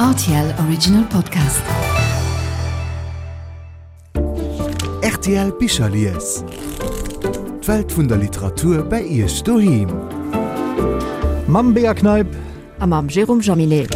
Rtl Original Podcast. Rtl Bicherlies. D'Welt vun der Literatur bei Iech doheem. Mam Bea Kneip. A mam Jérôme Jaminet.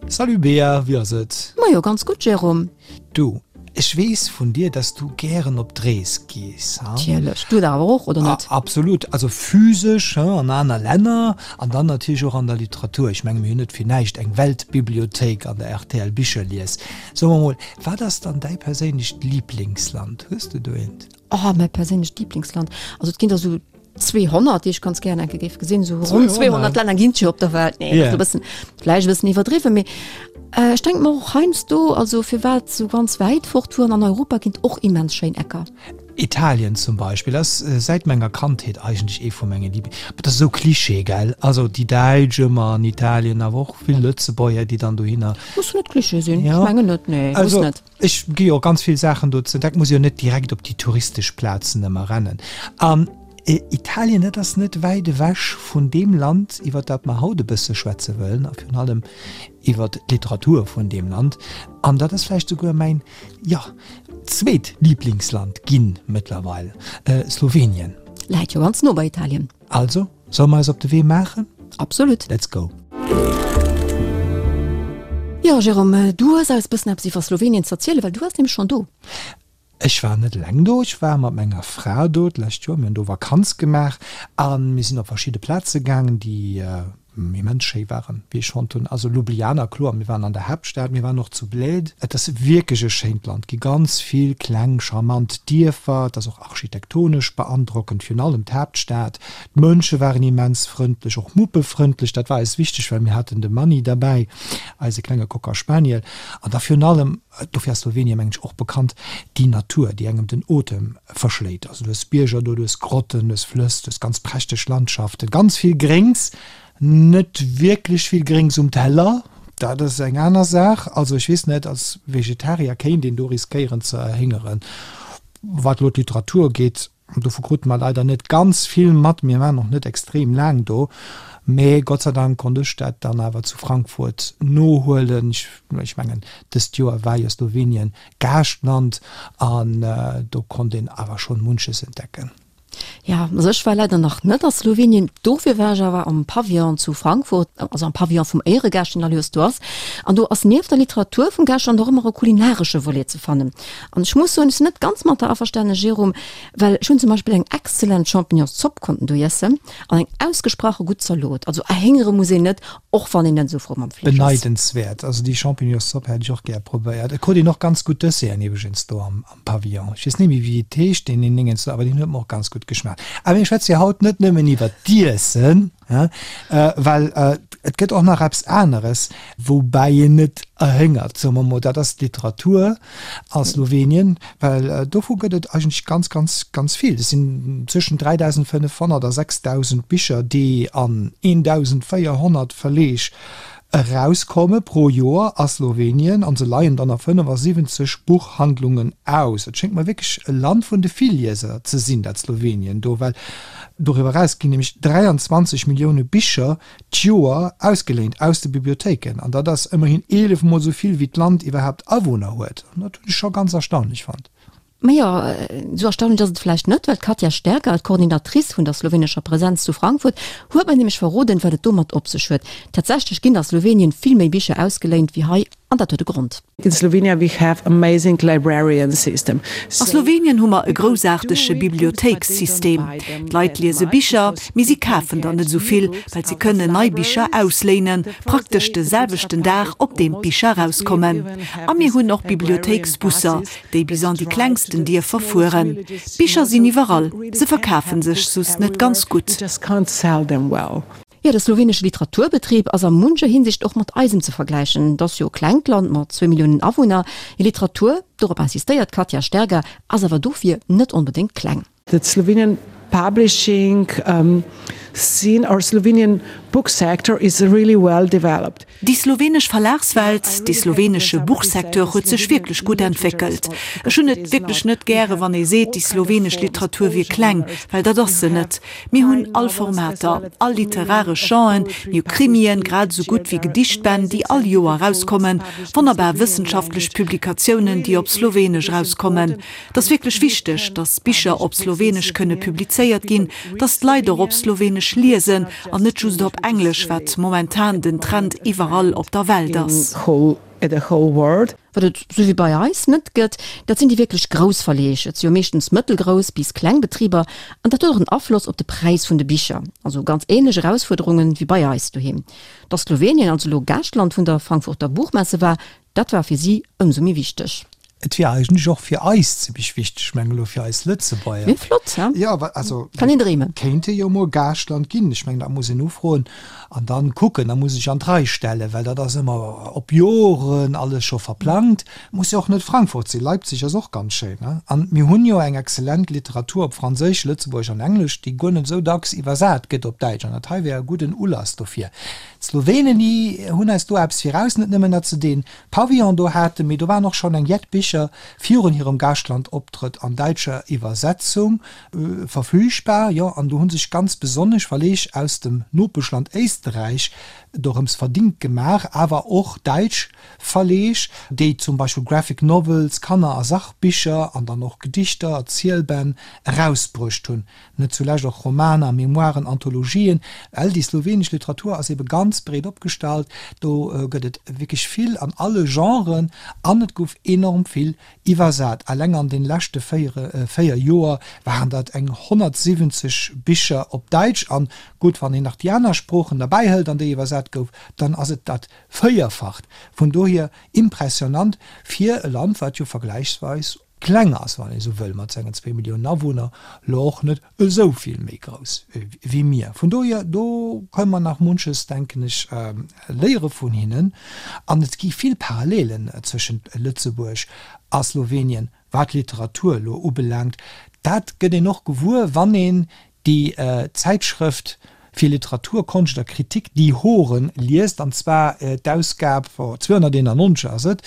Salut Bea, wéi ass et? Majo, ganz gutt Jérôme. Du, ech weess vun dir, dass du gären op d'Rees gees, ha? Natierlech. Du dach awer och, oder net? Absolut. Also physesch, ha, an aner Länner an dann natierlech och an der Literatur. Ech menge mir hunn net fir näischt eng Weltbibliothéik an der rtl Bicherlies. So mer mol, wat ass dann däi perséinlecht Liblingsland? Hues de do eent? Oh, mäi perséinlecht Liblingsland? Also et ginn der esou 200, déi ech ganz gären enke géif gesinn. Esou ronn 200 Länner ginn et jo op der Welt. Nee, yeah. e bëssen, vläicht e bëssen iwwerdriwwen, mee äh, ech denk mer och heiansdo, also firwat sou ganz wäit fort fueren, an Europa ginn et och immens schéin Ecker. Italien zum Beispill ass äh, säit menger Kandheet eigentlech ee vu menge Liebling. Dat ass esou Klischee, gell? Also déi Däitsch ëmmer an Italien, awer och vill Lëtzebuerger, déi dann dohinner. Muss net Klischee sinn, ja. Ech mengen net, nee, also, muss net. Ech gi jo ganz vill Saachen do ze entdecken, muss jo net direkt op déi touristesch Plazen ëmmer rennen. An Italien, dat ass net wäit ewech vun deem Land, iwwer dat mer haut e bësse schwätze wëllen, a virun allem iwwer d'Literatur vun deem Land. An dat ass vläicht souguer mäin, jo, zweet Liblingsland ginn mëttlerweil, Slowenien. Läit jo ganz no bei Italien. Also, solle mer eis op de Wee maachen? Absolut. Let's go! Jo, Jérôme, du hues eis bëssen eppes iwwer Slowenien z'erzielen, well du waars nämlech schonn do. Ech war net eleng do, ech war mat menger Fra do d'lescht Joer. Mir hunn do Vakanz gemaach a mir sinn op verschidde Plaze gaangen, déi immens schéi waren, wéi ech fonnt hunn. Also Ljubljana, kloer, mir waren an der Haaptstad, mir waren och zu Bled. Et ass wierklech e schéint Land, gi ganz vill kleng charmant Dierfer, et ass och architektonesch beandrockend, virun allem d'Haaptstad. D'Mënsche waren immens frëndlech, och muppefrëndlech, dat war eis wichteg, well mir haten de Manni derbäi, eise klenge Cocker Spaniel. An da virun allem, dofir ass Slowenien, mengen ech, och bekannt, déi Natur, déi engem den Otem verschléit. Also du hues Bierger do, du hues Grotten, du hues Flëss, du hues ganz prächteg Landschaften, ganz vill Gréngs, net wierklech vill Gréngs um Teller, dat ass eng aner Saach. Also ech weess net, als Vegetarier kéint een do riskéieren ze erhéngeren. Wat elo d'Literatur ugeet, dovu krute mer leider net ganz vill mat, mir waren och net extrem laang do, mee Gott sei Dank konnt ech dat dann awer zu Frankfurt nohuelen. Ech mengen, dëst Joer war jo Slowenien Gaaschtland an do konnt een awer schonn munches entdecken. Ja, also ech war leider nach net a Slowenien, dofir war ech awer am Pavillon zu Frankfurt, also am Pavillon vum Éieregaascht, deen all Joers do ass. An do ass nieft der Literatur vum Gaaschtland och ëmmer e kulinaresche Volet ze fannen. An ech muss soen, ech sinn net ganz mat der averstanen, Jérôme, well ech hunn zum Beispill eng exzellent Champignonszopp konnten do iessen an eng ausgesprache gutt Zalot. Also erhéngere muss een net, och wann een net esou frou mam Fleesch ass. Beneidenswäert. Also déi Champignonszopp hätt ech och gär probéiert. Et krut een och ganz gutt Desserten iwwregens do am Pavillon. Ech weess net méi wéi et heescht, deen een Dingens do, awer deen huet mer och ganz gutt geschmaacht. Awer mir schwätze jo haut net nëmmen iwwert d'Iessen, well et gëtt och nach eppes aneres, woubäi een net erhéngert, soe mer mol, dat ass d'Literatur a Slowenien, well dovu gëtt et eigentlech ganz, ganz, ganz vill. Et sinn zwëschen 3.500 a 6.000 Bicher, déi an 1.400 Verleeg erauskomme pro Joer a Slowenien, an se leien dann a 75 Buchhandlungen aus. Et schéngt mer wierklech e Land vun de Villieser ze sinn, dat Slowenien do, well doriwwer eraus ginn nämlech 23 Millioune Bicher d'Joer ausgeléint aus de Bibliothéiken, an dat ass ëmmerhin 11 mol esou vill wéi d'Land iwwerhaapt Awunner huet. An dat hunn ech scho ganz erstaunlech fonnt. Majo, esou erstaunlech ass et vläicht net, well d'Katja Stergar, d'Coordinatrice vun der slowenescher Presenz zu Frankfurt, huet mer nämlech verroden, wat et domat op sech huet. Tatsächlech ginn a Slowenien vill méi Bicher ausgeléint wéi hei, an dat huet e Grond. In Slovenia we have amazing librarian system. A Slowenien hu mer e groussaartege Bibliothéikssystem. D'Leit liese Bicher, mee si kafen der net esou vill, well si kënnen nei Bicher ausléinen, praktesch de selwechten Dag, op deem d'Bicher erauskommen. A mir hunn och Bibliothéiksbusser, déi bis an déi klengsten Dierfer fueren. D'Bicher sinn iwwerall, se verkafe sech just net ganz gutt. Jo, de slowenesche Literaturbetrib ass a muncher Hinsicht och mat eisem ze vergläichen. Et ass jo e klengt Land mat zwou Milliounen Awunner. Hir Literatur, dorop insistéiert d'Katja Stergar, ass awer dofir net onbedéngt kleng. The Slovenian publishing scene or Slovenian. book sector is really well developed. Déi slowenesch Verlagswelt, dee slowenesche Buchsecteur huet sech wierklech gutt entwéckelt. Ech hunn et wierklech net gäre wann ee seet, déi slowenesch Literatur wier kleng, well dat ass se net. Mir hunn all Formater, all literaresch Genren, mir hu Krimien, grad esou gutt wéi Gedichtbänn, déi all Joer erauskommen, wonnerbar wëssenschaftlech Publikatiounen, déi op Slowenesch erauskommen. Et ass wierklech wichteg, datt Bicher op Slowenesch kënne publizéiert ginn, datt d'Leit och op Slowenesch liesen an net just op Englesch, wat momentan den Trend iwwerall op der Welt ass. Wat et sou wéi bei eis net gëtt, dat sinn déi wierklech grouss Verleeg. Et si jo meeschtens mëttelgrouss bis kleng Betriber an dat huet och en Afloss op de Präis vun de Bicher. Also ganz änlech Erausfuerderungen wéi bei eis doheem. Datt Slowenien also elo Gaaschtland vun der Frankfurter Buchmesse war, dat war fir si ëmsou méi wichteg. Et wier eigentlech och fir eis zimmlech wichteg, ech mengen elo fir eis Lëtzebuerger. Wier flott, he? Jo, wa, also. Kann een dreemen. Kéinte jo mol Gaaschtland ginn. Ech mengen, dat muss een ufroen an dann kucken. Da muss ee sech an d'Rei stellen, well dat ass ëmmer op Joren alles scho verplangt. Muss jo och net Frankfurt sinn, Leipzig ass och ganz schéin, ne? An mir hunn jo eng exzellent Literatur op Franséisch, Lëtzebuergesch an Englesch, déi guer net esou dacks iwwersat gëtt op Däitsch. An dat hei wär e gudden Ulass dofir. D'Slowenen, déi hunn eis do eppes viraus, net nëmmen, datt se dee Pavillon do haten, mee do waren och schonn eng jett Bicher virun hirem Gaaschtlandoptrëtt an däitscher Iwwersetzung verfügbar. Jo, an do hu sech ganz besonnesch Verleeg aus dem Nopeschland Éisterräich dorëms verdingt gemaach, awer och däitsch Verleeg, déi zum Beispill Graphic Novels, Kanner a Sachbicher an dann och Gedichter, Erzielbänn erausbruecht hunn. Net zulescht och Romaner, Memoiren, Anthologien. Well déi slowenesch Literatur ass ebe ganz breet opgestallt. Do gëtt et wierklech vill an alle Genren an et gouf enorm vill iwwersat. Eleng an de leschte 4 Joer waren dat eng 170 Bicher op Däitsch. An gutt, wann een nach déi aner Sproochen derbäi hëlt, an déi iwwersat gouf, dann ass et dat Véierfacht. Vun dohier impressionant fir e Land, wat jo vergläichsweis kleng ass, wann ee sou wëll, mat sengen zwéi Milliounen Awunner, lo och net esou vill méi grouss wéi mir. Vun dohier, do kënne mer nach munches, denken ech, léiere vun hinnen. An et gi vill Parallelen zwëschent Lëtzebuerg a Slowenien, wat d'Literatur elo ubelaangt. Dat gëtt een och gewuer, wann een déi Zäitschrëft fir Literatur, Konscht a Kritik, Die Horen, liest, an zwar d'Ausgab 291 ass et,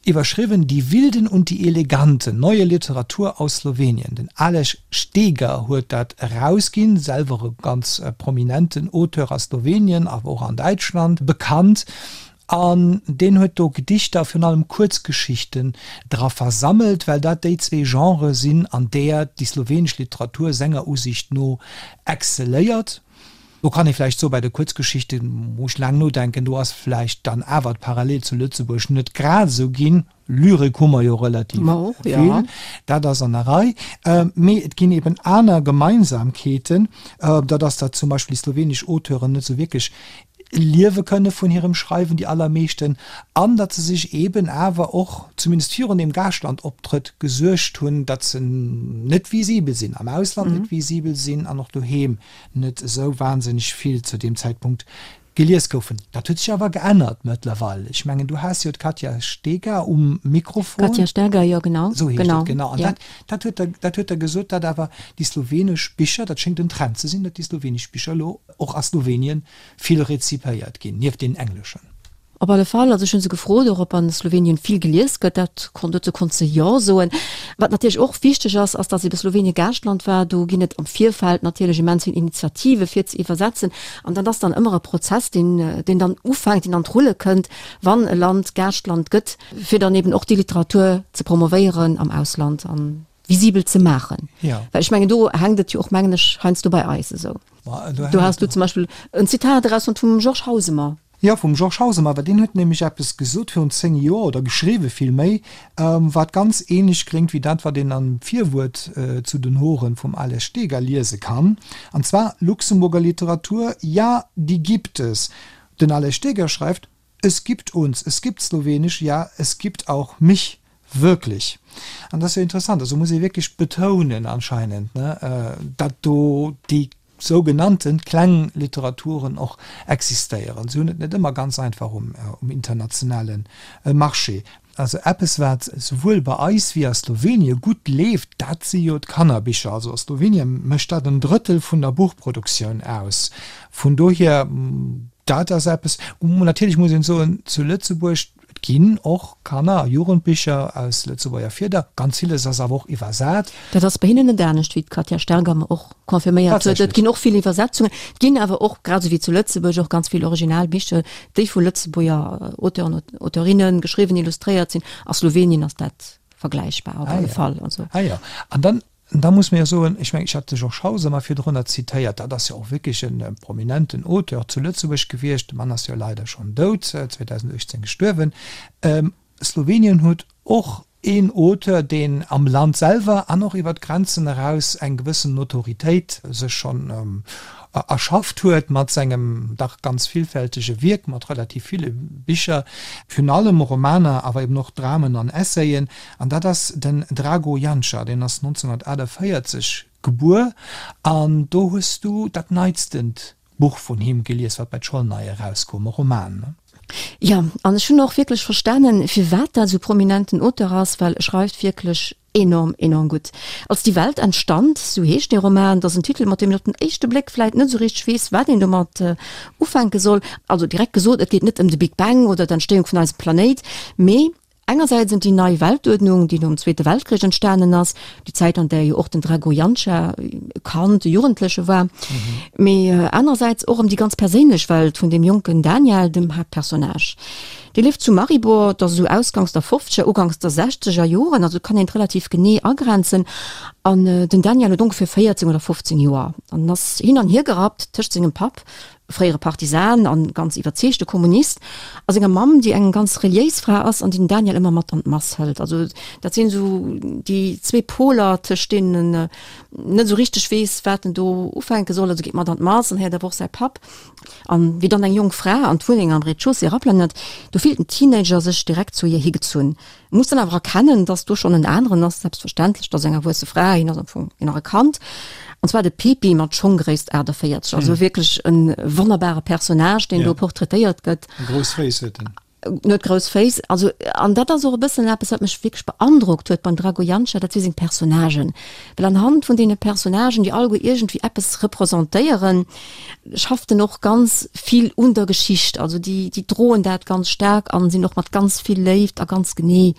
iwwerschriwwen Die Wilden und die Eleganten, neue Literatur aus Slowenien. Den Aleš Steger huet dat erausginn, selwer e ganz prominenten Auteur a Slowenien, awer och an Däitschland bekannt. An deen huet do Gedichter, virun allem Kuerzgeschichten, dra versammelt, well dat déi zwee Genrë sinn, an där déi slowenesch Literatur senger Usiicht no excelléiert. Do kann ee vläicht soen, bei de Kuerzgeschichte muss ech laang nodenken, do ass vläicht dann awer d'Parallel zu Lëtzebuerg net grad esou ginn. Lyrik hu mer jo relativ vill, dat ass an der Rei. Mee et ginn eben aner Gemeinsamkeeten, dat ass, datt zum Beispill déi slowenesch Auteuren net esou wierklech liewe kënne vun hirem Schreiwen, déi allermeeschten, an datt se sech eben awer och, zumindest virun deem Gaaschtlandoptrëtt, gesuergt hunn, datt se net visibel sinn, am Ausland net visibel sinn an och doheem net esou wahnsinneg vill zu deem Zäitpunkt Gelies goufen. Dat huet sech awer geännert mëttlerweil. Ech mengen, du has jo d'Katja Steger um Mikrofon. Katja Steger, jo, genau. Esou heescht et, genau. An dat, dat huet der, dat huet der gesot, datt awer déi slowenesch Bicher, dat schéngt en Trend ze sinn, datt déi slowenesch Bicher elo och a Slowenien vill rezipéiert ginn, nieft deenen engleschen. Op alle Fall, also ech hu se gefrot och, ob an Slowenien vill gelies gëtt. Dat konnt, dozou konnt se Jo soen. Wat natierlech och wichteg ass, ass, datt ebe Slowenien Gaaschtland war. Do ginn et am Virfeld natierlech immens vill Initiative fir ze iwwersetzen. An dat ass dann ëmmer e Prozess, deen, deen dann ufänkt, deen an d'Rulle kënnt, wann e Land Gaaschtland gëtt, fir dann eben och déi Literatur ze promovéieren am Ausland an visibel ze maachen. Ja. Well ech mengen, do hänkt et jo och, mengen ech, heiansdo bei eis esou. Do has du zum Beispill en Zitat erausfonnt vum Georges Hausemer. Jo, vum Georges Hausemer, well deen huet nämlech eppes gesot virun 10 Joer, oder geschriwwe villméi, wat ganz ähnlech kléngt wéi dat, wat een am Virwuert zu den Horen vum Ales Steger liese kann, an zwar, Luxemburger Literatur, ja, die gibt es. Den Ales Steger schreift, Es gibt uns, es gibt Slowenisch, ja, es gibt auch mich, wirklich. An dat ass jo interessant, also muss ee wierklech betounen anscheinend, ne, datt do déi sougenannten kleng Literaturen och existéieren. Se hunn et net ëmmer ganz einfach um internationale Marché. Also eppes wat souwuel bei eis wéi a Slowenie gutt leeft, dat si jo d'Kannerbicher. Also a Slowenie mécht dat en Drëttel vun der Buchproduktioun aus. Vun dohier, dat ass eppes. Natierlech muss een soen, zu Lëtzebuerg, et ginn och Kanner a Jugendbicher aus Lëtzebuerger Fieder, ganz villes ass awer och iwwersat. Dat ass bei hinnen net anescht, wéi d'Katja Sterger mer och confirméiert huet. Et ginn och vill Iwwersetzungen, et ginn awer och, grad esou wéi zu Lëtzebuerg, och ganz vill Originalbicher, déi vu Lëtzebuerger Auteuren, Auteurinnen geschriwwen, illustréiert sinn. A Slowenien ass dat vergläichbar op alle Fall. Also. Ah jo, an dann, da muss mir jo soen, ech mengen, ech hat de Georges Hauser mar virdrunner zitéiert, dat ass jo och wierklech e prominenten Auteur zu Lëtzebuerg gewiescht, de Mann ass jo leider schonn dout, 2018 gestuerwen. Slowenien huet och een Auteur, deen am Land selwer an och iwwer d'Grenzen eraus eng gewëssen Notoritéit sech schonn erschafft huet mat sengem dach ganz villfältege Wierk, mat relativ ville Bicher, virun allem Romaner, awer eben och Dramen an Essayen. An dat ass den Drago Janša, deen ass 1948 gebuer an do hues du dat neitstent Buch vun him gelies, wat bei Zsolnay erauskoum, e Roman, ne? Jo, an ech hunn och wierklech verstanen, firwat dat esou prominenten Auteur ass, well e schreift wierklech enorm, enorm gutt. Als die Welt entstand, sou heescht dee Roman, dat ass en Titel, mat deem een op den éischte Bléck vläit net esou richteg weess, wat een domat ufänke soll. Also direkt gesot, et geet net ëm de Big Bang oder d'Entstéiung vun eisem Planéit, mee Engersäits ëm déi nei Weltuerdnung, déi nom Zweete Weltkrich entstanen ass, déi Zäit an där jo och den Drago Janša e Kand, e Jugendleche war, mee anerersäits och ëm déi ganz perséinlech Welt vun deem jonken Daniel, dem Haaptpersonnage. Dee lieft zu Maribor, dat ass esou ausganks der fofzeger, uganks der sechzeger Joren, also kann een et relativ genee agrenzen. An den Daniel huet ongeféier 14 oder 15 Joer an ass hin an hier gerappt tëscht sengem Papp, fréiere Partisan an ganz iwwerzeegte Kommunist, a senger Mamm, déi eng ganz reliéis Fra ass an déi den Daniel ëmmer mat an d'Mass hëlt. Also dat sinn esou déi zwee Poler, tëscht deenen en net esou richteg weess, wat en do ufänke soll. Also geet mat an d'Mass an héiert awer och säi Papp. An wéi dann eng jonk Fra an d'Wunneng am Rez-de-chaussée eraplënnert, do fillt den Teenager sech direkt zu hir higezunn. Muss dann awer erkennen, dass do schonn en aneren ass, selbstverständlech, dat ass eng erwuesse Fra, hien ass am Fong nach e Kand, an zwar de Pepi mat Schonggréisst 48, also wierklech e wonnerbare Personnage, deen do portraitéiert gëtt. Grouss Féiss huet en. En huet grouss Féiss, also, an dat ass och e bëssen eppes, wat mech wierklech beandrockt huet beim Drago Janša, dat si seng Personnagen, well anhand vun deene Personnagen, déi alleguer iergendwéi eppes representéieren, schafft en och ganz vill un der Geschicht, also déi déi droen dat ganz staark an sinn och mat ganz vill Léift a ganz genee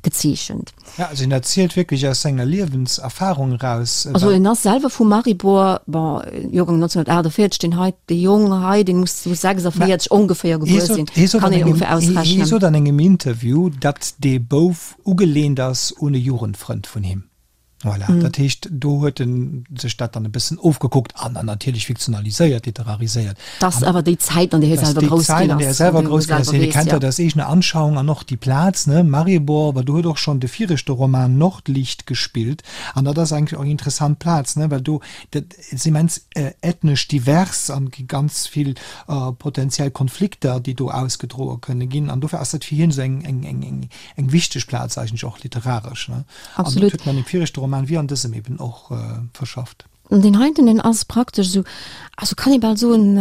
gezeechent. Ja, also en erzielt wierklech aus senger Liewenserfahrung eraus. Also en ass selwer vu Maribor, bon, Joergang 1948, deen hei, dee Jong hei, deen muss sou 46 ongeféier gebuer sinn, kann een ongeféier ausrechnen. Hie sot an engem Interview, datt dee Bouf ugelehnt ass un e Jugendfrënd vun him. Voilà, dat heescht, do huet en sech dat dann e bëssen ofgekuckt an dann natierlech fiktionaliséiert, literariséiert. Dat ass awer déi Zäit, an där hie selwer grouss ginn ass. Déi Zäit, an där hie selwer grouss ginn ass. Hie kennt dat aus eegener Anschauung an och déi Plaz, ne, Maribor, well do huet och schonn de viregte Roman Nordlicht gespillt. An dat ass eigentlech och eng interessant Plaz, ne, well do, dat ass immens ethnesch divers an gi ganz vill potenziell Konflikter, déi do ausgedroe kënne ginn. An dofir ass dat fir hien esou eng, eng, eng, eng, eng wichteg Plaz eigentlech och literaresch, ne. Absolut. An dat huet en an dem viregte Roman wéi an dësem eben och verschafft. An deen heiten, deen ass praktesch esou, also kann ee bal soen,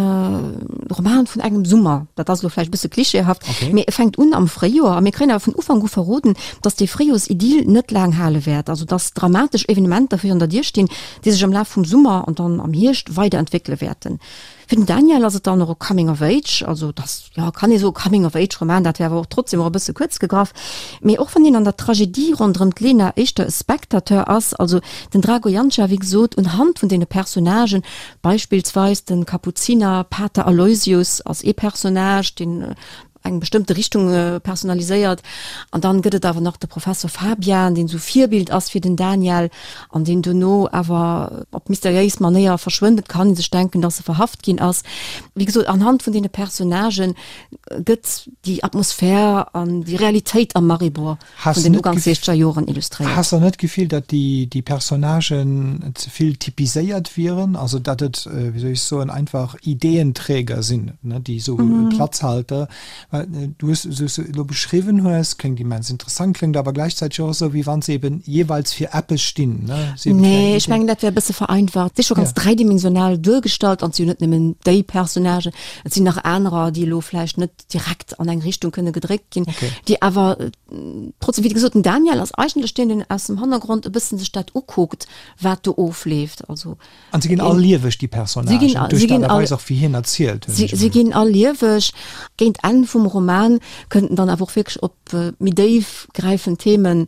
Roman vun engem Summer. Dat ass elo vläicht e bësse klischeehaft, okay, mee e fänkt un am Fréijoer a mir kréien awer vun Ufank u verroden, datt dee Fréijoersidyll net laang hale wäert, also datt dramatesch Evenementer virun der Dier stinn, déi sech am Laf vum Summer an dann am Hierscht weiderentwéckele wäerten. Fir den Daniel ass et dann och e Coming of Age, also et ass, jo, kann ee soe Coming of Age Roman, dat wär awer och trotzdem och e bësse kuerz gegraff. Mee och wann hien an der Tragedie ronderëm d'Lena éischter e Spectateur ass, also den Drago Janša, wéi gesot, unhand vun deene Personnagen, beispillsweis de Kapuziner Pater Aloysius ass ee Personnage, deen eng bestëmmte Richtung personaliséiert. An dann gëtt et awer nach de Professor Fabian, deen esou Virbild ass fir den Daniel an deen dono awer op mysteriéis Manéier verschwënnt. Et kann ee sech denken, dass e verhaft ginn ass. Wéi gesot, anhand vun deene Personnagen gëtt déi Atmosphär an déi Realitéit am Maribor vun den Uganks siechzeger Joren illustréiert. Has der net d'Gefill, datt déi Personnagen ze vill typiséiert wieren? Also datt et, wéi soll ech soen, einfach Ideenträger sinn, déi esou Platzhalter? Well du hues, esou wéi s de elo beschriwwen hues, kléngt immens interessant, kléngt awer gläichzäiteg och esou, wéi wann se eben jeeweils fir eppes stinn, ne? Se eben fir eng Nee, ech mengen, dat wär e bësse vereinfacht. Et si scho ganz dräidimensional duergestallt an et si jo net nëmmen déi Personnagen, et sinn nach anerer, déi elo vläicht net direkt an eng Richtung kënne gedréckt ginn, déi awer trotzdem, wéi gesot, den Daniel ass eigentlech deen, deen aus dem Hannergrond e bëssen sech dat ukuckt, wat do ofleeft. Also An se ginn all lieweg, déi Personnagen, duerch d'Aart a Weis och, wéi hien erzielt. Si ginn all lieweg. Géint Enn vum Roman kënnt en dann awer och wierklech op méi déif gräifend Themen,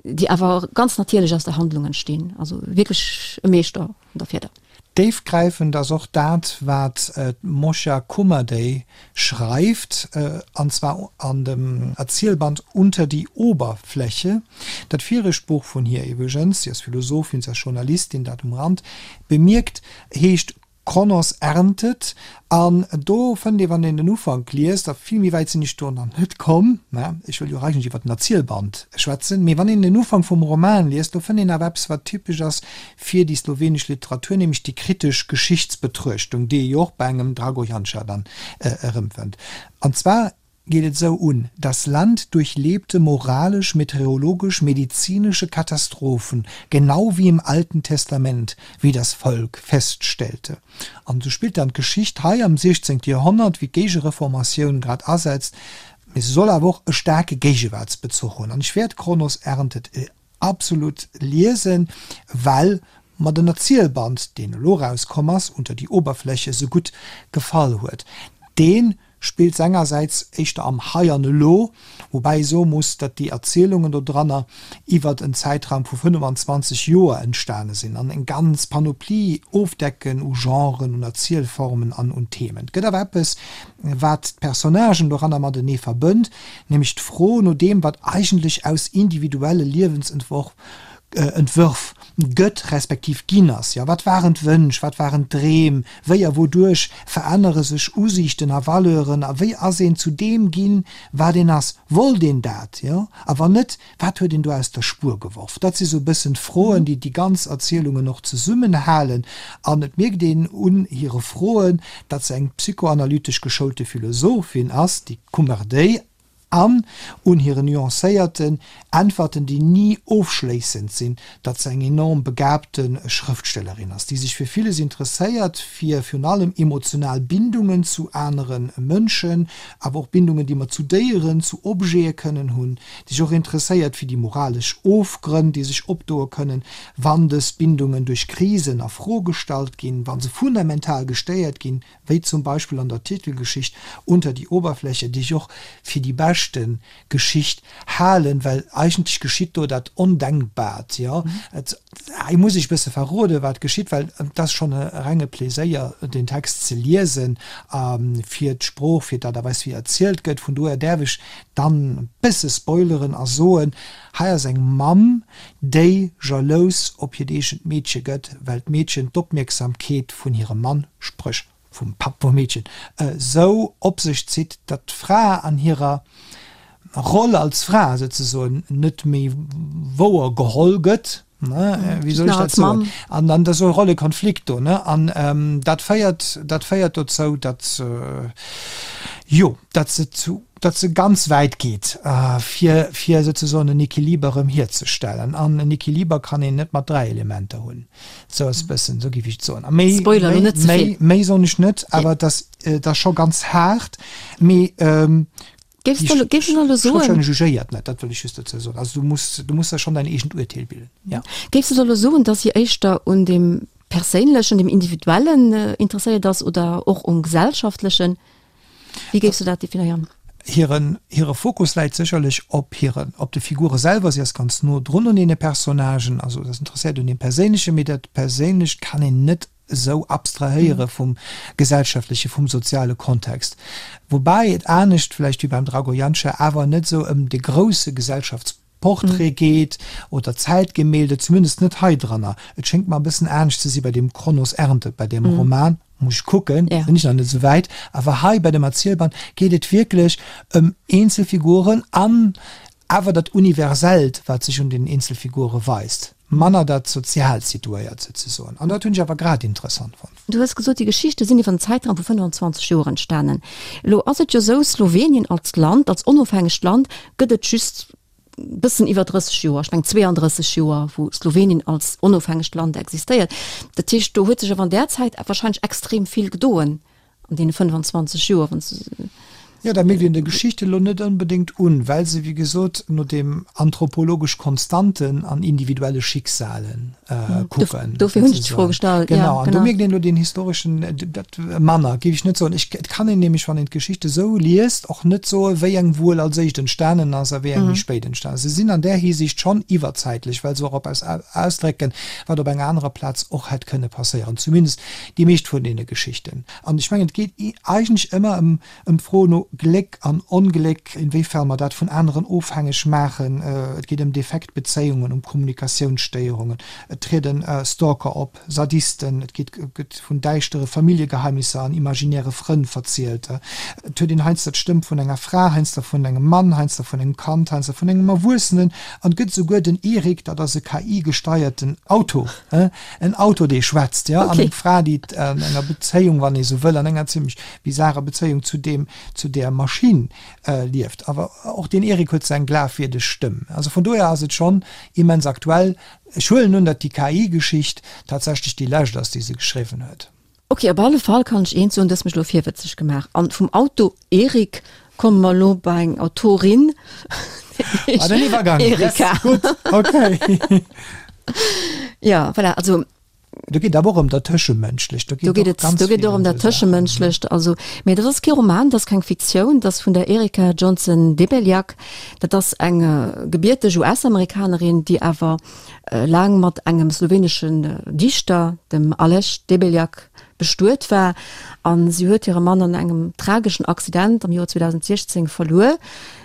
déi awer ganz natierlech aus der Handlung entstinn. Also wierklech e Meeschter vun der Fieder. Déifgräifend ass och dat, wat d'Moscha Kumadey schreift, an zwar an dem Erzielband Unter die Oberfläche. Dat viregt Buch vun hir iwwregens, si ass Philosophin, si ass Journalistin, dat um Rand bemierkt, heescht Kronos erntet. An do fënnt ee, wann een den Ufank liest, a vill méi wäit sinn ech do nach net komm, mä ech wëll jo och eigentlech iwwer den Erzielband schwätzen, mee wann een den Ufank vum Roman liest, do fënnt een awer eppes, wat typesch ass fir déi slowenesch Literatur, nämlech déi kritesch Geschichtsbetruechtung, déi ee jo och bei engem Drago Janša dann erëmfënnt. An zwar geet et esou un, Das Land durchlebte moralisch, meteorologisch, medizinische Katastrophen, genau wie im Alten Testament, wie das Volk feststellte. An esou spillt dann d'Geschicht hei am 16. Joerhonnert, wéi d'Géigereformatioun grad asetzt, mee se soll awer och e staarke Géigewaartsbezuch hunn. An ech wäert Kronos erntet Absolut liesen, well mer den Erzielband, deen elo rauskomm ass, Unter die Oberfläche, sou gutt gefall huet. Dee spillt sengersäits éischter am Hei an Elo, woubäi ee soe muss, datt déi Erzielungen dodranner iwwert en Zäitraum vu 25 Joer entstane sinn an eng ganz Panoplie ofdecken u Genren, un Erzielformen an un Themen. Et gëtt awer eppes, wat d'Personnagen doranner matenee verbënnt, nämlech d'Fro no deem, wat eigentlech aus individuelle Liewensentworf Entwërf gëtt, respektiv ginn ass. Jo, wat waren d'Wënsch, wat waren d'Dreem, wéi a wouduerch verännere sech Usiichten a Valeuren a wéi ass een zu deem ginn, wat een ass? Wollt een dat? Jo, a wann net, Wat huet een do aus der Spuer geworf? Dat si sou e bëssen d'Froen, déi déi ganz Erzielungen och zesummenhalen. An et mierkt een un hire Froen, datt se eng psychoanalytesch geschoulte Philosophin ass, déi Kummerdéi, an un hiren nuancéierten Äntwerten, déi ni ofschléissend sinn, datt se eng enorm begabte Schrëftstellerin ass, déi sech fir villes interesséiert, fir virun allem emotional Bindungen zu anere Mënschen, awer och Bindungen, déi mer zu Déieren, zu Objete kënnen hunn, déi sech och interesséiert fir déi moralesch Ofgrënn, déi sech opdoe kënnen, wann dës Bindungen duerch Krisen a Fro gestallt ginn, wa se fundamental gestéiert ginn, wéi zum Beispill an der Titelgeschicht Unter die Oberfläche, déi ech och fir déi beschte Geschicht halen, well eigentlech geschitt do dat Ondenkbaart, jo. Et, hei muss ech e bësse verroden, wat geschitt, well et ass schonn e renge Pleséier, deen Text ze liesen, fir d'Sprooch, fir d'Aart a Weis, wéi erzielt gëtt. Vun dohier däerf ech dann e bësse spoileren a soen, hei ass eng Mamm, déi jalous op hiert eegent Meedche gëtt, well d'Meedchen d'Opmierksamkeet vun hirem Mann, spréch vum Papp vum Meedchen, esou op sech zitt, datt d'Fra an hirer Roll als Fra souzesoen net méi wouer geholl gëtt, ne, wéi soll ech dat soen? An dann ass esou e Rollekonflikt do, ne, an dat féiert, dat féiert dozou, datt, jo, datt se zu, datt se ganz wäit geet, fir, fir souzesoen en Equiliber erëm hierzestellen. An en Equiliber kann een net mat 3 Elementer hunn. Sou ass e bëssen, sou géif ech et soen. A méi, Spoiler méi, net ze méi, vill. méi soen ech net, awer et ass, et ass scho ganz haart, mee Géifs de, géifs de elo soen. D'Schrëftstellerin jugéiert net, dat wëll ech just dozou soen. Also du muss, du muss der schonn däin eegent Urteel bilden, ja. Géifs de elo soen, datt si éischter un deem Perséinlechen, dem Individuellen interesséiert ass oder och um Gesellschaftlechen? Wéi géifs du dat definéieren? Hiren, hire Fokus läit sécherlech op hiren, op de Figure selwer. Si ass ganz no drun un deene Personnagen, also ass interesséiert un deem Perséinlechen, mee dat Perséinlecht kann een net esou abstrahéiere vum gesellschaftleche, vum soziale Kontext. Woubäi et anescht vläicht wéi beim Drago Janša awer net esou ëm de grousse Gesellschaftsportrait geet oder Zäitgemälde, zumindest net hei dranner. Et schéngt mer e bëssen anescht ze si bei deem Kronos erntet, bei deem Roman, muss ech kucken, sinn ech nach net esou wäit, awer hei bei dem Erzielband geet et wierklech ëm eenzel Figuren an awer dat Universellt, wat sech un den Eenzelfigure weist. Manner dat sozial Situéiert souzesoen. An dat hunn ech awer grad interessant fonnt. Du hues gesot, déi Geschichte sinn iwwer en Zäitraum vu 25 Joer entstanen. Elo ass et jo esou, Slowenien als Land, als onofhängegt Land gëtt et just bëssen iwwer 30 Joer, ech mengen 32 Joer, wou Slowenien als onofhängegt Land existéiert. Dat heescht, do huet sech awer an där Zäit wahrscheinlech extrem vill gedoen an deene 25 Joer, wann s de. Jo, dat mierkt een der Geschicht elo net onbedéngt un, well se, wéi gesot, no deem anthropologesch Konstanten an individuelle Schicksalen kucken. Dofir hunn ech d'Fro gestallt. Genau, an do mierkt een elo deen historeschen, dat manner, géif ech net soen. Ech, et kann een nämlech, wann een d'Geschichte sou liest, och net soen, wéi eng wuel als éischt entstanen ass a wéi eng méi spéit entstanen ass. Se sinn an där Hisiicht schonn iwwerzäitlech, well se och eppes ausdrécken, wat op enger anerer Plaz och hätt kënne passéieren, zumindest déi meescht vun deene Geschichten. An ech mengen, et geet eigentlech ëmmer ëm ëm d'Fro no Gléck an Ongléck, inwéifern mer dat vun aneren ofhängeg maachen. Et geet ëm defekt Bezéiungen, ëm Kommunikatiounsstéierungen, et trieden Stalker op, Sadisten, et geet gëtt vun däischtere Familljegeheimnisser an imaginäre Frënn verzielt. Et huet een heiansdo d'Stëmm vun enger Fra, heiansdo vun engem Mann, heiansdo vun engem Kand, heiansdo vun engem Erwuessenen an et gëtt esouguer den Erik, dat ass e KI-gesteierten Auto. En Auto, dee schwätzt, jo, an eng Fra, déi an enger Bezéiung, wann ee sou wëll, an enger zimmlech bizarer Bezéiung zu deem, zu där Maschinn lieft. Awer och den Erik huet seng glafwierdeg Stëmm. Also vun dohier ass et schonn immens aktuell. Ech huelen un, datt déi KI-Geschicht tatsächlech déi lescht ass, déi se geschriwwen huet. Ok, op alle Fall kann ech eent soen, du hues mech elo virwëtzeg gemaach. An vum Auto Erik komme mer elo bei eng Autorin, Ah, den Iwwergang. Erika. Yes, gutt, okay. Ja, voilà, also. Do geet awer och ëm dat Tëschemënschlecht. Do geet et, do geet och ëm dat Tëschemënschlecht. Also, mee dat ass kee Roman, dat ass keng Fiktioun, dat ass vun der Erika Johnson Debeljak. Dat ass eng gebierteg US-Amerikanerin, déi awer laang mat engem sloweneschen Dichter, dem Aleš Debeljak, bestuet war. A si huet hire Mann an engem trageschen Accident am Joer 2016 verluer,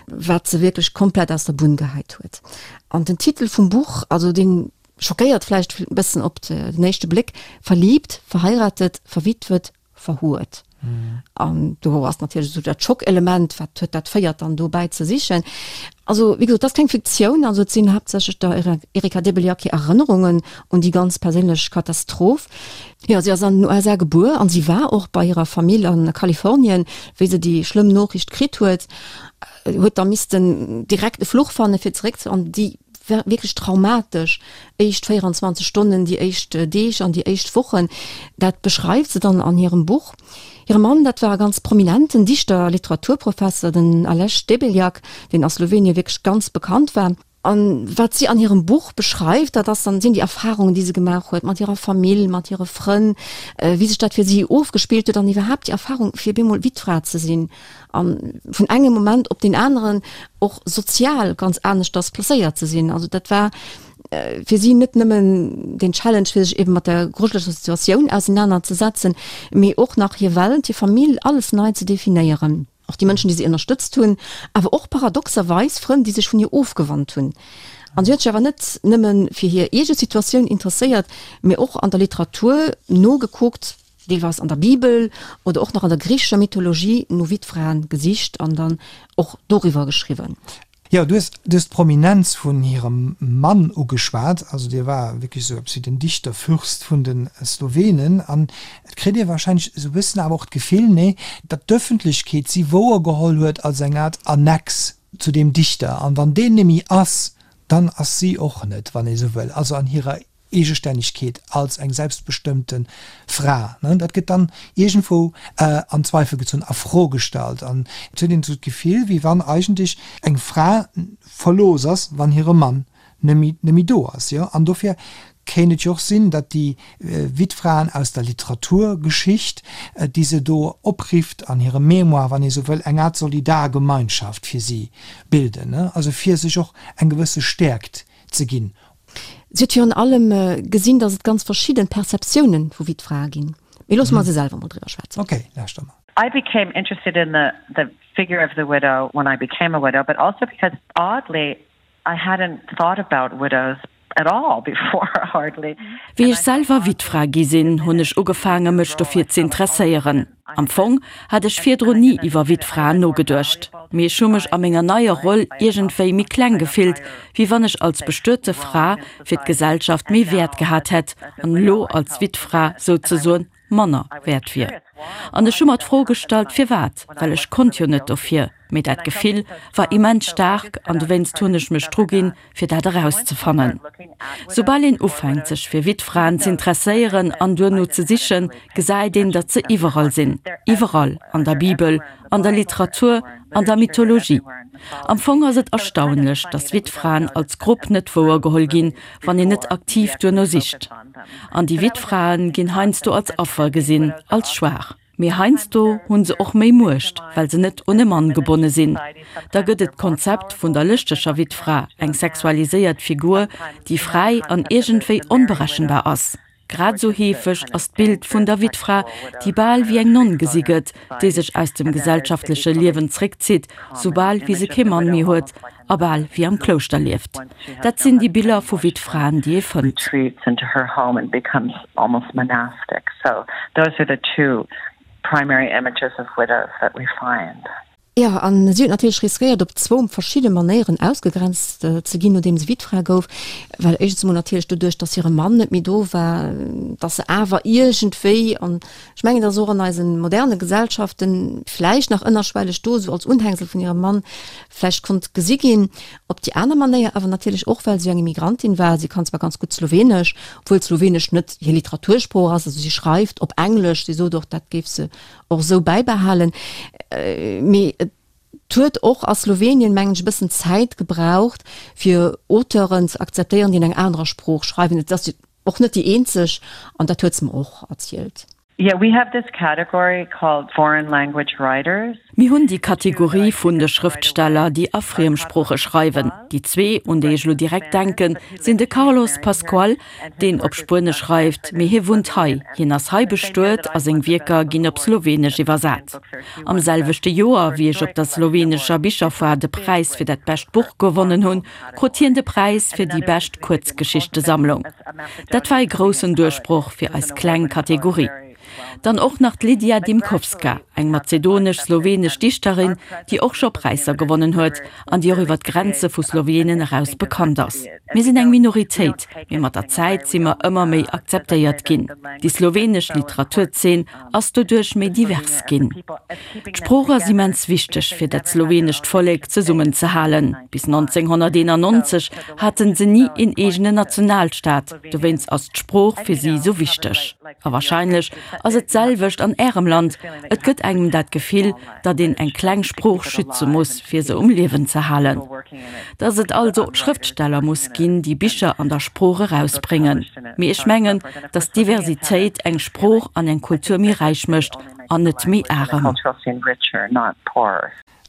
wat se wierklech komplett aus der Bunn gehäit huet. An den Titel vum Buch, also dee schockéiert vläicht e bëssen op den éischte Bléck, Verliebt, verheiratet, verwitwet, verhuert. An do ass natierlech esou dat Schockelement, wat huet dat féiert dann dobäi ze sichen. Also wéi gesot, dat ass keng Fiktioun, also et sinn haaptsächlech der Erika Debeljak hir Erënnerungen un déi ganz perséinlech Katastroph. Jo, si ass an den USA gebuer an si war och bei hirer Famill a Kalifornien, wéi se déi schlëmm Noriicht kritt huet, huet da missten direkt e Fluch fanne fir zeréck ze an déi wierklech traumatesch éischt 24 Stonnen, déi éischt Deeg an déi éischt Wochen, dat beschreift se dann an hirem Buch. Hire Mann, dat war e ganz prominenten Dichter a Literaturprofesser, den Aleš Debeljak, deen a Slowenien wierklech ganz bekannt war. An wat si an hirem Buch beschreift, dat ass dann, sinn déi Erfarungen, déi se gemaach huet mat hirer Famill, mat hire Frënn, wéi sech dat fir si ofgespillt huet an iwwerhaapt déi Erfarung, fir bemol Wittfra ze sinn. An vun engem Moment op deen aneren och sozial ganz aneschters placéiert ze sinn. Also dat war fir si net nëmmen den Challenge, fir sech eben mat der grujeleger Situatioun ausenaner ze setzen, mee och nach hir Welt, hir Famill, alles nei ze definéieren. Och déi Mënschen, déi si ënnerstëtzt hunn, awer och paradoxerweis Frënn, déi sech vun hir ofgewannt hunn. An si huet sech awer net nëmme fir hir eege Situatioun interesséiert, mee och an der Literatur nogekuckt, deelweis an der Bibel oder och nach an der griichescher Mythologie no Wittfraen gesicht an dann och doriwwer geschriwwen. Jo, du hues du hues d'Prominenz vun hirem Mann ugeschwat. Also dee war wierklech esou eppes wéi den Dichterfürst vun de Slowenen. An et kritt ee warscheinlech esou e bëssen awer och d'Gefill, nee, datt d'Ëffentlechkeet si wouergeholl huet als eng Art Annex zu deem Dichter. An wann deen némmi ass, dann ass si och net, wann ee sou wëll, also an hirer Eegestännegkeet als eng selbstbestëmmte Fra, dat gëtt dann iergendwou an Zweifel gezunn, a Fro gestallt. An et huet een esou d'Gefill, wéi wann eigentlech eng Fra verlooss ass, wann hire Mann net méi do ass. Jo, an dofir kéint et jo och sinn, datt déi Wittfraen aus der Literaturgeschicht, déi se do oprifft an hirem Mémoire, wann ee sou wëll, eng Art Solidargemeinschaft fir si bilden, also fir sech och eng gewësse Stäerkt ze ginn. Si huet virun allem gesinn, datt et ganz verschidden Perceptiounen vu Wittfrae ginn. Mee loosse mer se selwer mol driwwer schwätzen. Ok, lauschter mer. I became interested in the the figure of the widow when I became a widow, but also because oddly I hadn't thought about widows at all before hardly. Wéi ech selwer Wittfra gi sinn, hunn ech ugefaange mech dofir z'interesséieren. Am Fong hat ech virdrun ni iwwer Wittfraen nogeduecht, mee ech hu mech a menger neier Roll iergendwéi méi kleng gefillt, wéi wann ech als bestuete Fra fir d'Gesellschaft méi Wäert gehat hätt an elo als Wittfra souzesoen manner wäert wier. An ech hu mer d'Fro gestallt, firwat, well ech konnt jo net dofir. Mee dat Gefill war immens staark an dowéinst hunn ech mech druginn, fir dat erauszefannen. Soubal een ufänkt, sech fir Wittfraen z'interesséieren an duerno ze sichen, gesäit een, datt se iwwerall sinn, iwwerall, an der Bibel, an der Literatur, an der Mythologie. Am Fong ass et erstaunlech, datt Wittfraen als Grupp net wouergeholl ginn, wann een net aktiv duerno sicht. An déi Wittfrae ginn heiansdo als Affer gesinn, als schwaach. Mee heiansdo hu se och méi Muecht, well se net un e Mann gebonne sinn. Da gëtt et d'Konzept vun der lëschteger Wittfra, eng sexualiséiert Figur, déi fräi an iergendwéi onberechenbar ass. Grad esou heefeg ass d'Bild vun der Wittfra, déi bal wéi eng Nonn gesi gëtt, déi sech aus dem gesellschaftleche Liewen zréckzitt, soubal wéi se kee Mann méi huet a bal wéi am Klouschter lieft. Dat sinn déi Biller vu Wittfraen, déi ee fënnt. Jo, a si huet natierlech riskéiert, op zwou verschidde Manéieren ausgegrenzt ze ginn, nodeem se Wittfra gouf. Well éischtens emol natierlech doduerch, datt hire Mann net méi do war, datt se awer iergendwéi, an ech mengen, dat ass och an eise moderne Gesellschaften vläicht nach ënnerschwelleg do, esou als Unhängsel vun hirem Mann vläicht konnt gesi ginn. Op déi aner Manéier awer natierlech och, well se jo eng Immigrantin war. Si kann zwar ganz gutt Slowenesch, obwuel Slowenesch net hir Literatursprooch ass, also si schreift op Englesch, si sot och, dat géif se och esou bäibehalen. Mee et huet och a Slowenien, mengen ech, e bëssen Zäit gebraucht, fir Auteuren ze akzeptéieren, déi an enger anerer Sprooch schreiwen. Et ass jo och net déi eenzeg, an dat huet se mer och erzielt. Yeah, we have this category called foreign language writers. Mir hunn déi Kategorie vun de Schrëftsteller, déi a Friemsprooche schreiwen. Déi zwee, un déi ech elo direkt denken, sinn de Carlos Pascual, deen op Spuenesch schreift, mee hie wunnt hei, hien ass hei bestuet a seng Wierker ginn op Slowenesch iwwersat. Am selwechte Joer, wéi ech op der slowenescher Bicherfoire de Präis fir dat bescht Buch gewonnen hunn, krut hien de Präis fir déi bescht Kuerzgeschichtesammlung. Dat war e groussen Duerchbroch fir eis kleng Kategorie. Dann och nach d'Lidija Dimkovska, eng mazedonesch-slowenesch Dichterin, déi och scho Präisser gewonnen huet an déi och iwwer d'Grenze vu Slowenen eraus bekannt ass. Mir sinn eng Minoritéit, mee mat der Zäit si mer ëmmer méi akzeptéiert ginn. Déi slowenesch Literaturzeen ass doduerch méi divers ginn. D'Sprooch ass immens wichteg fir dat slowenescht Vollek zesummenzehalen. Bis 1991 haten se ni een eegenen Nationalstaat, dowéinst ass d'Sprooch fir si sou wichteg. A warscheinlech ass et d'selwecht an Ärem Land, et gëtt engem dat Gefill, datt een eng kleng Sprooch schütze muss, fir se um Liewen ze halen. Datt et also Schrëftsteller muss ginn, déi Bicher an der Sprooch erausbréngen. Mee ech mengen, datt Diversitéit eng Sprooch an eng Kultur méi räich mécht an net méi arem.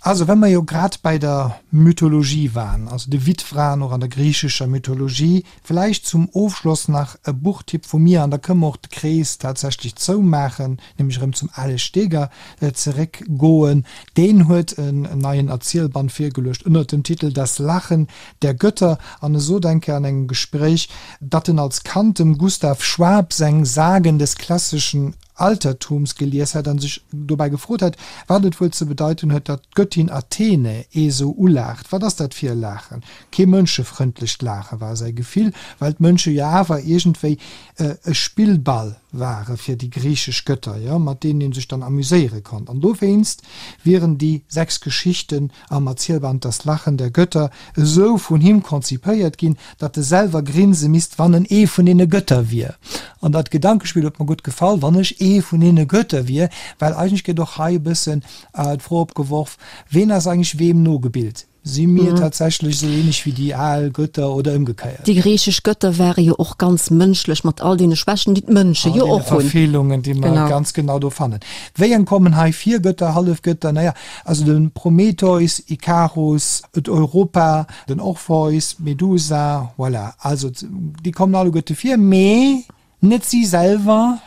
Also well mer jo grad bäi der Mythologie waren, also de Wittfraen och an der griichescher Mythologie, vläicht zum Ofschloss nach e Buchtipp vu mir, an da kënne mer och de Krees tatsächlech zoumaachen, nämlech erëm zum Alex Steger zeréckgoen. Deen huet en neien Erzielband virgeluecht ënnert dem Titel Das Lachen der Götter an e sot eng Kéier an engem Gespréich, datt en als Kand dem Gustav Schwab seng Sagen des klassischen Altertums gelies hätt an sech dobäi gefrot hätt, wat et wuel ze bedeiten huet, datt d'Göttin Athene ee sou ulaacht. Wat ass dat fir e Laachen? Kee mënschefrëndlecht Laache war säi Gefill, well d'Mënsche jo awer iergendwéi e Spillball ware fir déi griichesch Götter, jo, mat deenen ee sech dann amuséiere konnt. An dowéinst wieren déi 6 Geschichten am Erzielband Das Lachen der Götter esou vun him konzipéiert ginn, datt e selwer grinse misst, wann en ee vun deene Götter wier. An dat Gedankespill huet mer gutt gefall, wann ech ee vun deene Götter wier, well eigentlech gëtt och hei e bëssen d'Fro opgeworf, Ween ass eigentlech weem nogebilt? Si mir tatsächlech esou ähnlech wéi déi al Götter oder ëmgekéiert? Déi griichesch Götter ware jo och ganz mënschlech, mat all deene Schwächen, déi d'Mënsche jo och hunn. All deene Verfeelungen, déi mer ganz genau do fannen. Wéi eng kommen hei vir? Götter, Hallefgötter? Naja, also de Prometheus, Ikarus, et Europa, den Orpheus, d'Medusa, voilà. Also déi kommen alleguerte vir, mee Net si selwer,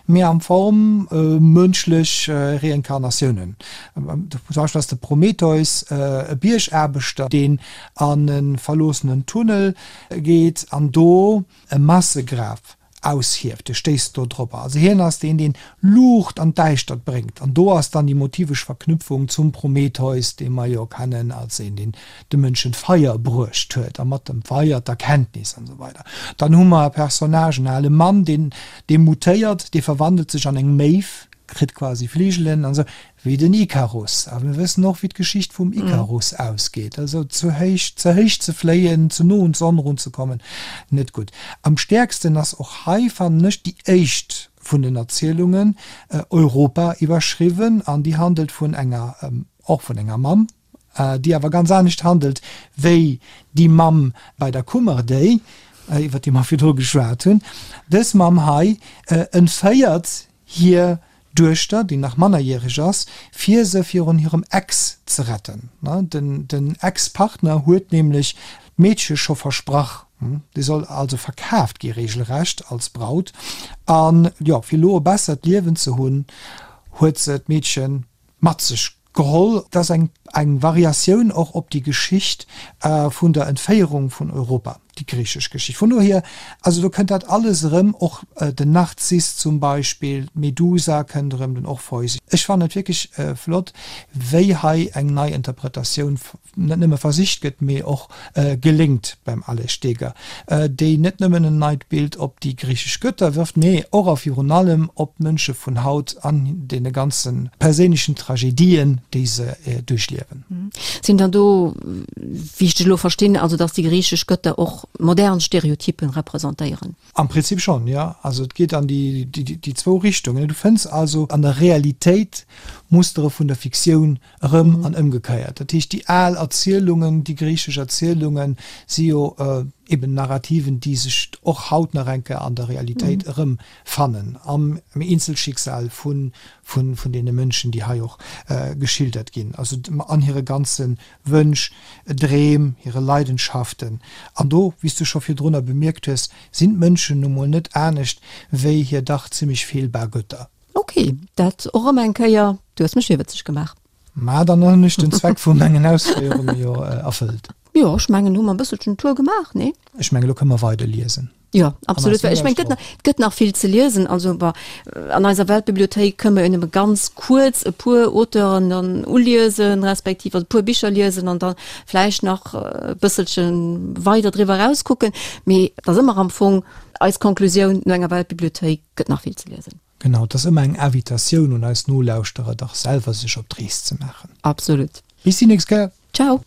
mee am Form mënschlech Reinkarnatiounen. Zum Beispill ass de Prometheus e Biergaarbechter, deen an e verloossenen Tunnel geet an do e Massegraf. Aushieft, e stéisst do drop. Also hien ass deen, deen Luucht an d'Däischtert bréngt. An do ass dann déi motivesch Verknüpfung zum Prometheus, dee mer jo kennen als een, deen de Mënschen d'Feier bruecht huet a mat dem Feier d'Erkenntnis an esou weider. Dann hu mer e Personnage, en ale Mann, deen, dee mutéiert, dee verwandelt sech an eng Méiw, kritt quasi Fligelen an esou, wéi den Ikarus. A mir wëssen och, wéi d'Geschicht vum Ikarus ausgeet. Also zu héich, ze héich ze fléien, ze no un d'Sonn erunzekommen, net gutt. Am stäerksten ass och hei, fannen ech, déi éischt vun den Erzielungen, Europa iwwerschriwwen, an déi handelt vun enger, och vun enger Mamm, déi awer ganz anescht handelt wéi déi Mamm bei der Kummerdéi, iwwer déi mer virdru geschwat hunn. Dës Mamm hei entféiert hir Duechter, déi nach mannerjäreg ass, fir se virun hirem Ex ze retten. Den Ex-Partner huet nämlech d'Meedche scho versprach, déi soll also verkaaft gi regelrecht als Braut. An jo, fir elo e bessert Liewen ze hunn, huet se d'Meedche mat sech geholl. Dat ass eng eng Variatioun och op déi Geschicht vun der Entféierung vun Europa, déi griichesch Geschicht. Vun dohier, also do kënnt dat alles erëm, och den Narziss zum Beispill, d'Medusa kënnt erëm, den Orpheus. Ech fannen et wierklech flott, wéi hei eng nei Interpretatioun net nëmme versicht gëtt, mee och geléngt beim Aleš Steger, déi net nëmmen en neit Bild op déi griichesch Gëtter wërft, mee och a virun allem op d'Mënsche vun haut an deene ganze perséinlechen Tragedien, déi se duerchliewen. Sinn dann do, wéi ech dech elo verstinn, also datt déi griichesch Gëtter och modern Stereotypen representéieren? Am Prinzip schonn, jo. Also et geet an déi zwou Richtungen. Du fënns also an der Realitéit Mustere vun der Fiktioun erëm an ëmgekéiert. Dat heescht, déi al Erzielungen, déi griichesch Erzielunge si jo eben Narrativen, déi sech och haut nach eng Kéier an der Realitéit erëmfannen, am Eenzelschicksal vun deene Mënschen, déi hei och geschildert ginn, also an hire ganze Wënsch, Dreem, hire Leidenschaften. An do, wéi s du scho virdrunner bemierkt hues, sinn d'Mënschen nu mol net anescht wéi hir dach zimmlech feelbar Gëtter. Ok, dat och erëm eng Kéier, du hues mech virwëtzeg gemaach. Ma dann hunn ech den Zweck vu mengen Ausféierunge jo erfëllt. Jo, ech mengen, hu mer e bësselchen Tour gemaach, nee? Ech mengen, elo kënne mer weider liesen. Jo, absolut, well ech mengen, et gëtt nach, et gëtt nach vill ze liesen. Also, bon, an eiser Weltbibliothéik kënne mer jo nëmme ganz kuerz e puer Auteuren dann uliesen, respektiv also e puer Bicher liesen an da vläicht nach e bësselche weider driwwer erauskucken. Mee et ass ëmmer am Fong eis Konklusioun, no enger Weltbibliothéik gëtt nach vill ze liesen. Genau, et ass ëmmer eng Invitatioun un eis Nolauschterer, dach selwer sech op d'Rees ze maachen. Absolut. Bis déi nächst Kéier. Ciao.